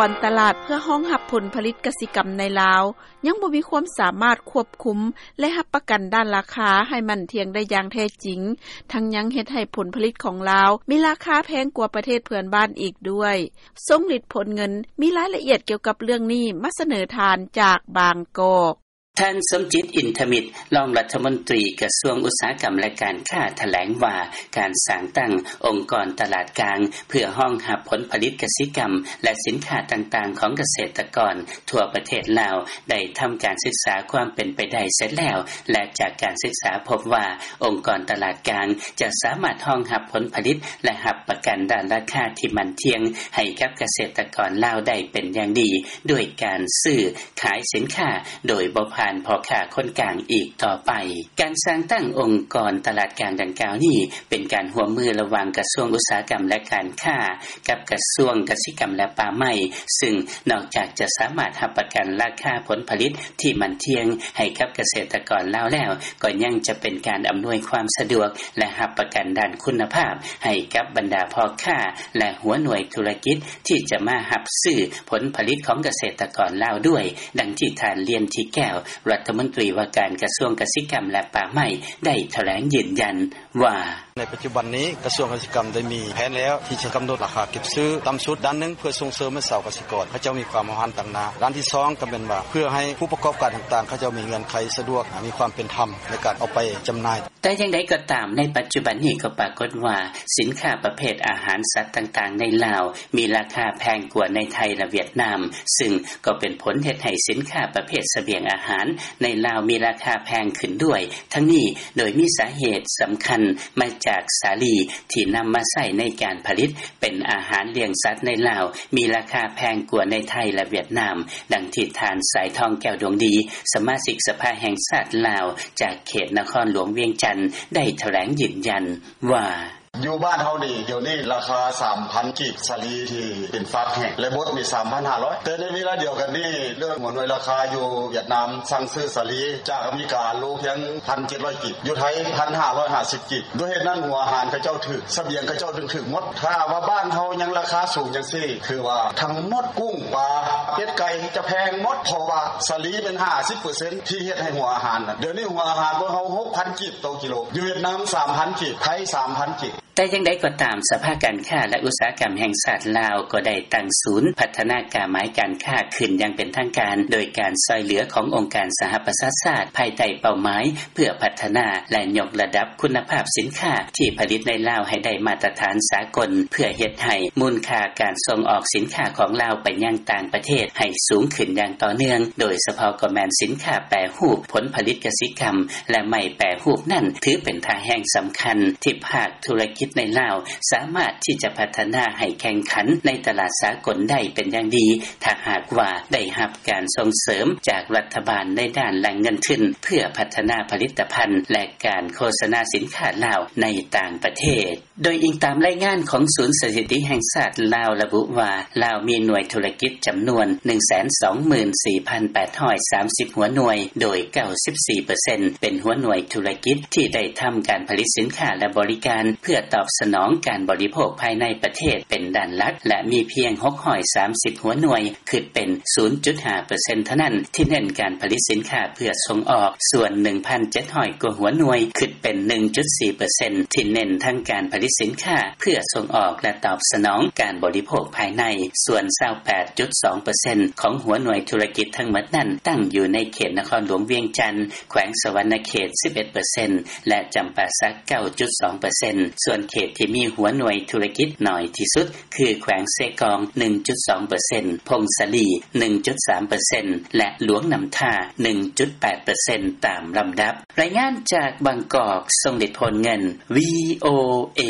ກອນຕະຫຼາດເພື່ອຮອງຮັບຜົນຜະລິດກະສິກຳໃນລາວ ຍັງບໍ່ມີຄວາມສາມາດຄວບຄຸມ ແລະຮັບປະກັນດ້ານລາຄາ ໃຫ້ໝັ້ນທ່ຽງໄດ້ຢ່າງແທ້ຈິງ ທັງຍັງເຮັດໃຫ້ຜົນຜະລິດຂອງລາວ ມີລາຄາແພງກວ່າປະເທດເພື່ອນບ້ານອີກດ້ວຍ. ຊົງລິດ ໂພນເງິນ ມີລາຍລະອຽດກ່ຽວກັບເລື່ອງນີ້ ມາສະເໜີທ່ານຈາກບາງກອກ. ທ່ານ ສົມຈິດ ອິນທະມິດ ຮອງລັດຖະມົນຕີກະຊວງອຸດສາຫະກຳ ແລະການຄ້າ ຖະແຫຼງວ່າ ການສ້າງຕັ້ງອົງກອນຕະຫຼາດກາງ ເພື່ອຮອງຮັບຜົນຜະລິດກະສິກຳ ແລະສິນຄ້າຕ່າງໆຂອງກະເສດຕະກອນທົ່ວປະເທດລາວ ໄດ້ທຳການສຶກສາຄວາມເປັນໄປໄດ້ເສັດແລ້ວ ແລະຈາກການສຶກສາພົບວ່າ ອົງກອນຕະຫຼາດກາງຈະສາມາດຮອງຮັບຜົນຜະລິດ ແລະຮັບປະກັນດ້ານລາຄາທີ່ໝັ້ນທ່ຽງໃຫ້ກັບກະເສດຕະກອນລາວໄດ້ເປັນຢ່າງດີ ດ້ວຍການຊື້ ຂາຍສິນຄ້າໂດຍບໍ່ຜ່ານພໍ່ຄ້າຄົນກາງອີກຕໍ່ໄປ. ການສ້າງຕັ້ງອົງກອນຕະຫຼາດກາງດັ່ງກ່າວນີ້ ເປັນການຮ່ວມມືລະຫວ່າງກະຊວງອຸດສາຫະກຳ ແລະການຄ້າ ກັບກະຊວງກະສິກຳ ແລະປ່າໄມ້ ຊຶ່ງນອກຈາກຈະສາມາດຮັບປະກັນລາຄາຜົນຜະລິດທີ່ໝັ້ນທ່ຽງໃຫ້ກັບກະເສດຕະກອນລາວແລ້ວ ກໍຍັງຈະເປັນການອຳນວຍຄວາມສະດວກ ແລະຮັບປະກັນດ້ານຄຸນນະພາບໃຫ້ກັບບັນດາພໍ່ຄ້າ ແລະຫົວໜ່ວຍທຸລະກິດ ທີ່ຈະມາຮັບຊື້ຜົນຜະລິດຂອງກະເສດຕະກອນລາວດ້ວຍ, ດັ່ງທີ່ທ່ານ ລຽນ ທິແກ້ວ ລັດຖະມົນຕີວ່າການກະຊວງກະສິກຳ ແລະປ່າໄມ້ ໄດ້ຖະແຫຼງຢືນຢັນວ່າ: ໃນປັດຈຸບັນນີ້ ກະຊວງກະສິກຳໄດ້ມີແຜນແລ້ວ ທີ່ຈະກຳນົດລາຄາເກັບຊື້ຕ່ຳສຸດດ້ານໜຶ່ງ ເພື່ອສົ່ງເສີມໃຫ້ຊາວກະສິກອນເຂົາເຈົ້າມີຄວາມຫ້າວຫັນຕາງໜ້າ, ດ້ານທີສອງກໍແມ່ນວ່າ ເພື່ອໃຫ້ຜູ້ປະກອບການຕ່າງໆ ເຂົາເຈົ້າມີເງື່ອນໄຂສະດວກ ມີຄວາມເປັນທຳໃນການເອົາໄປຈຳໜ່າຍ. ແຕ່ຢ່າງໃດກໍຕາມ ໃນປັດຈຸບັນນີ້ກໍປາກົດວ່າ ສິນຄ້າປະເພດອາຫານສັດຕ່າງໆໃນລາວ ມີລາຄາແພງກວ່າໃນໄທ ແລະຫວຽດນາມ, ຊຶ່ງກໍເປັນຜົນເຮັດໃຫ້ສິນຄ້າປະເພດສະບຽງອາຫານໃນລາວມີລາຄາແພງຂຶ້ນດ້ວຍ. ທັງນີ້ໂດຍມີສາເຫດສຳຄັນມາຈາກສາລີທີ່ນຳມາໃຊ້ໃນການຜະລິດເປັນອາຫານລ້ຽງສັດໃນລາວ ມີລາຄາແພງກວ່າໃນໄທ ແລະຫວຽດນາມ, ດັ່ງທີ່ທ່ານ ສາຍທອງ ແກ້ວດວງດີ ສະມາຊິກສະພາແຫ່ງຊາດລາວ ຈາກເຂດນະຄອນຫຼວງວຽງຈັນ ໄດ້ຖະແຫຼງຢືນຢັນວ່າ: ຢູ່ບ້ານເຮົານີ້ ດຽວນີ້ລາຄາສາມພັນກີບ ສາລີທີ່ເປັນຟາກແຫ້ງ ແລະບົດນີ້ສາມພັນຫ້າຮ້ອຍ ແຕ່ໃນເວລາດຽວກັນນີ້ ເລື່ອງຫົວໜ່ວຍລາຄາຢູ່ຫວຽດນາມ ສັ່ງຊື້ສາລີຈາກອາເມລິກາ ໂລພຽງພັນເຈັດຮ້ອຍກີບ, ຢູ່ໄທພັນຫ້າຮ້ອຍຫ້າສິບກີບ. ດ້ວຍເຫດນັ້ນ ຫົວອາຫານເຂົາເຈົ້າຖືກ, ສະບຽງເຂົາເຈົ້າຈຶ່ງຖືກໝົດ. ຖ້າວ່າບ້ານເຮົາຍັງລາຄາສູງຈັ່ງຊີ້ ຄືວ່າທັງໝົດ ກຸ້ງ ປາ ເປັດ ໄກ່ ຈະແພງໝົດ ເພາະວ່າສາລີເປັນຫ້າສິບເປີເຊັນ ທີ່ເຮັດໃຫ້ຫົວອາຫານ. ດຽວນີ້ຫົວອາຫານພວກເຮົາຫົກພັນກີບຕໍ່ກິໂລ, ຢູ່ຫວຽດນາມສາມພັນກີບ, ໄທສາມພັນກີບ. ແຕ່ຢ່າງໃດກໍຕາມ, ສະພາການຄ້າ ແລະ ອຸດສາຫະກຳແຫ່ງຊາດລາວ ກໍໄດ້ຕັ້ງສູນພັດທະນາກາໝາຍການຄ້າຂຶ້ນຢ່າງເປັນທາງການ ໂດຍການຊ່ອຍເຫຼືອຂອງອົງການສະຫະປະຊາຊາດ ພາຍໃຕ້ເປົ້າໝາຍເພື່ອພັດທະນາ ແລະ ຍົກລະດັບຄຸນນະພາບສິນຄ້າທີ່ຜະລິດໃນລາວໃຫ້ໄດ້ມາດຕະຖານສາກົນ ເພື່ອເຮັດໃຫ້ມູນຄ່າການສົ່ງອອກສິນຄ້າຂອງລາວໄປຍັງຕ່າງປະເທດໃຫ້ສູງຂຶ້ນຢ່າງຕໍ່ເນື່ອງ, ໂດຍສະເພາະກໍແມ່ນສິນຄ້າແປຮູບ, ຜົນຜະລິດກະສິກຳ ແລະ ໄມ້ແປຮູບນັ້ນ ຖືເປັນທ່າແຮງສຳຄັນທີ່ພາກ ທຸລະກິດໃນລາວສາມາດທີ່ຈະພັດທະນາໃຫ້ແຂ່ງຂັນໃນຕະຫຼາດສາກົນໄດ້ເປັນຢ່າງດີ ຖ້າຫາກວ່າໄດ້ຮັບການສົ່ງເສີມຈາກລັດຖະບານໃນດ້ານແຫຼ່ງເງິນທຶນ ເພື່ອພັດທະນາຜະລິດຕະພັນ ແລະ ການໂຄສະນາສິນຄ້າລາວໃນຕ່າງປະເທດ. ໂດຍອີງຕາມລາຍງານຂອງສູນສະຖິຕິແຫ່ງຊາດລາວ ລະບຸວ່າ ລາວມີໜ່ວຍທຸລະກິດຈຳນວນໜຶ່ງແສນສອງໝື່ນສີ່ພັນແປດຮ້ອຍສາມສິບຫົວໜ່ວຍ, ໂດຍເກົ້າສິບສີ່ເປີເຊັນເປັນຫົວໜ່ວຍທຸລະກິດທີ່ໄດ້ທຳການຜະລິດສິນຄ້າ ແລະ ບໍລິການ ເພື່ອຕອບສະໜອງການບໍລິໂພກພາຍໃນປະເທດເປັນດ້ານຫຼັກ ແລະ ມີພຽງຫົກຮ້ອຍສາມສິບຫົວໜ່ວຍ ຄິດເປັນສູນຈຸດຫ້າເປີເຊັນເທົ່ານັ້ນ ທີ່ເນັ້ນການຜະລິດສິນຄ້າເພື່ອສົ່ງອອກ, ສ່ວນໜຶ່ງພັນເຈັດຮ້ອຍກວ່າຫົວໜ່ວຍ ຄິດເປັນໜຶ່ງຈຸດສີ່ເປີເຊັນ ທີ່ເນັ້ນທັງການຜະລິດສິນຄ້າເພື່ອສົ່ງອອກ ແລະ ຕອບສະໜອງການບໍລິໂພກພາຍໃນ, ສ່ວນຊາວແປດຈຸດສອງເປີເຊັນຂອງຫົວໜ່ວຍທຸລະກິດທັງໝົດນັ້ນ ຕັ້ງຢູ່ໃນເຂດນະຄອນຫຼວງວຽງຈັນ, ແຂວງສະຫວັນນະເຂດສິບເອັດເປີເຊັນ ແລະ ຈຳປາສັກເກົ້າຈຸດສອງເປີເຊັນ. ສ່ວນເຂດທີ່ມີຫົວໜ່ວຍທຸລະກິດໜ້ອຍທີ່ສຸດ ຄືແຂວງເຊກອງໜຶ່ງຈຸດສອງເປີເຊັນ, ຜົ້ງສາລີໜຶ່ງຈຸດສາມເປີເຊັນ ແລະ ຫຼວງນ້ຳທາໜຶ່ງຈຸດແປດເປີເຊັນ ຕາມລຳດັບ. ລາຍງານຈາກບາງກອກ, ຊົງເດດ ໂພນເງິນ, ວີໂອເອ.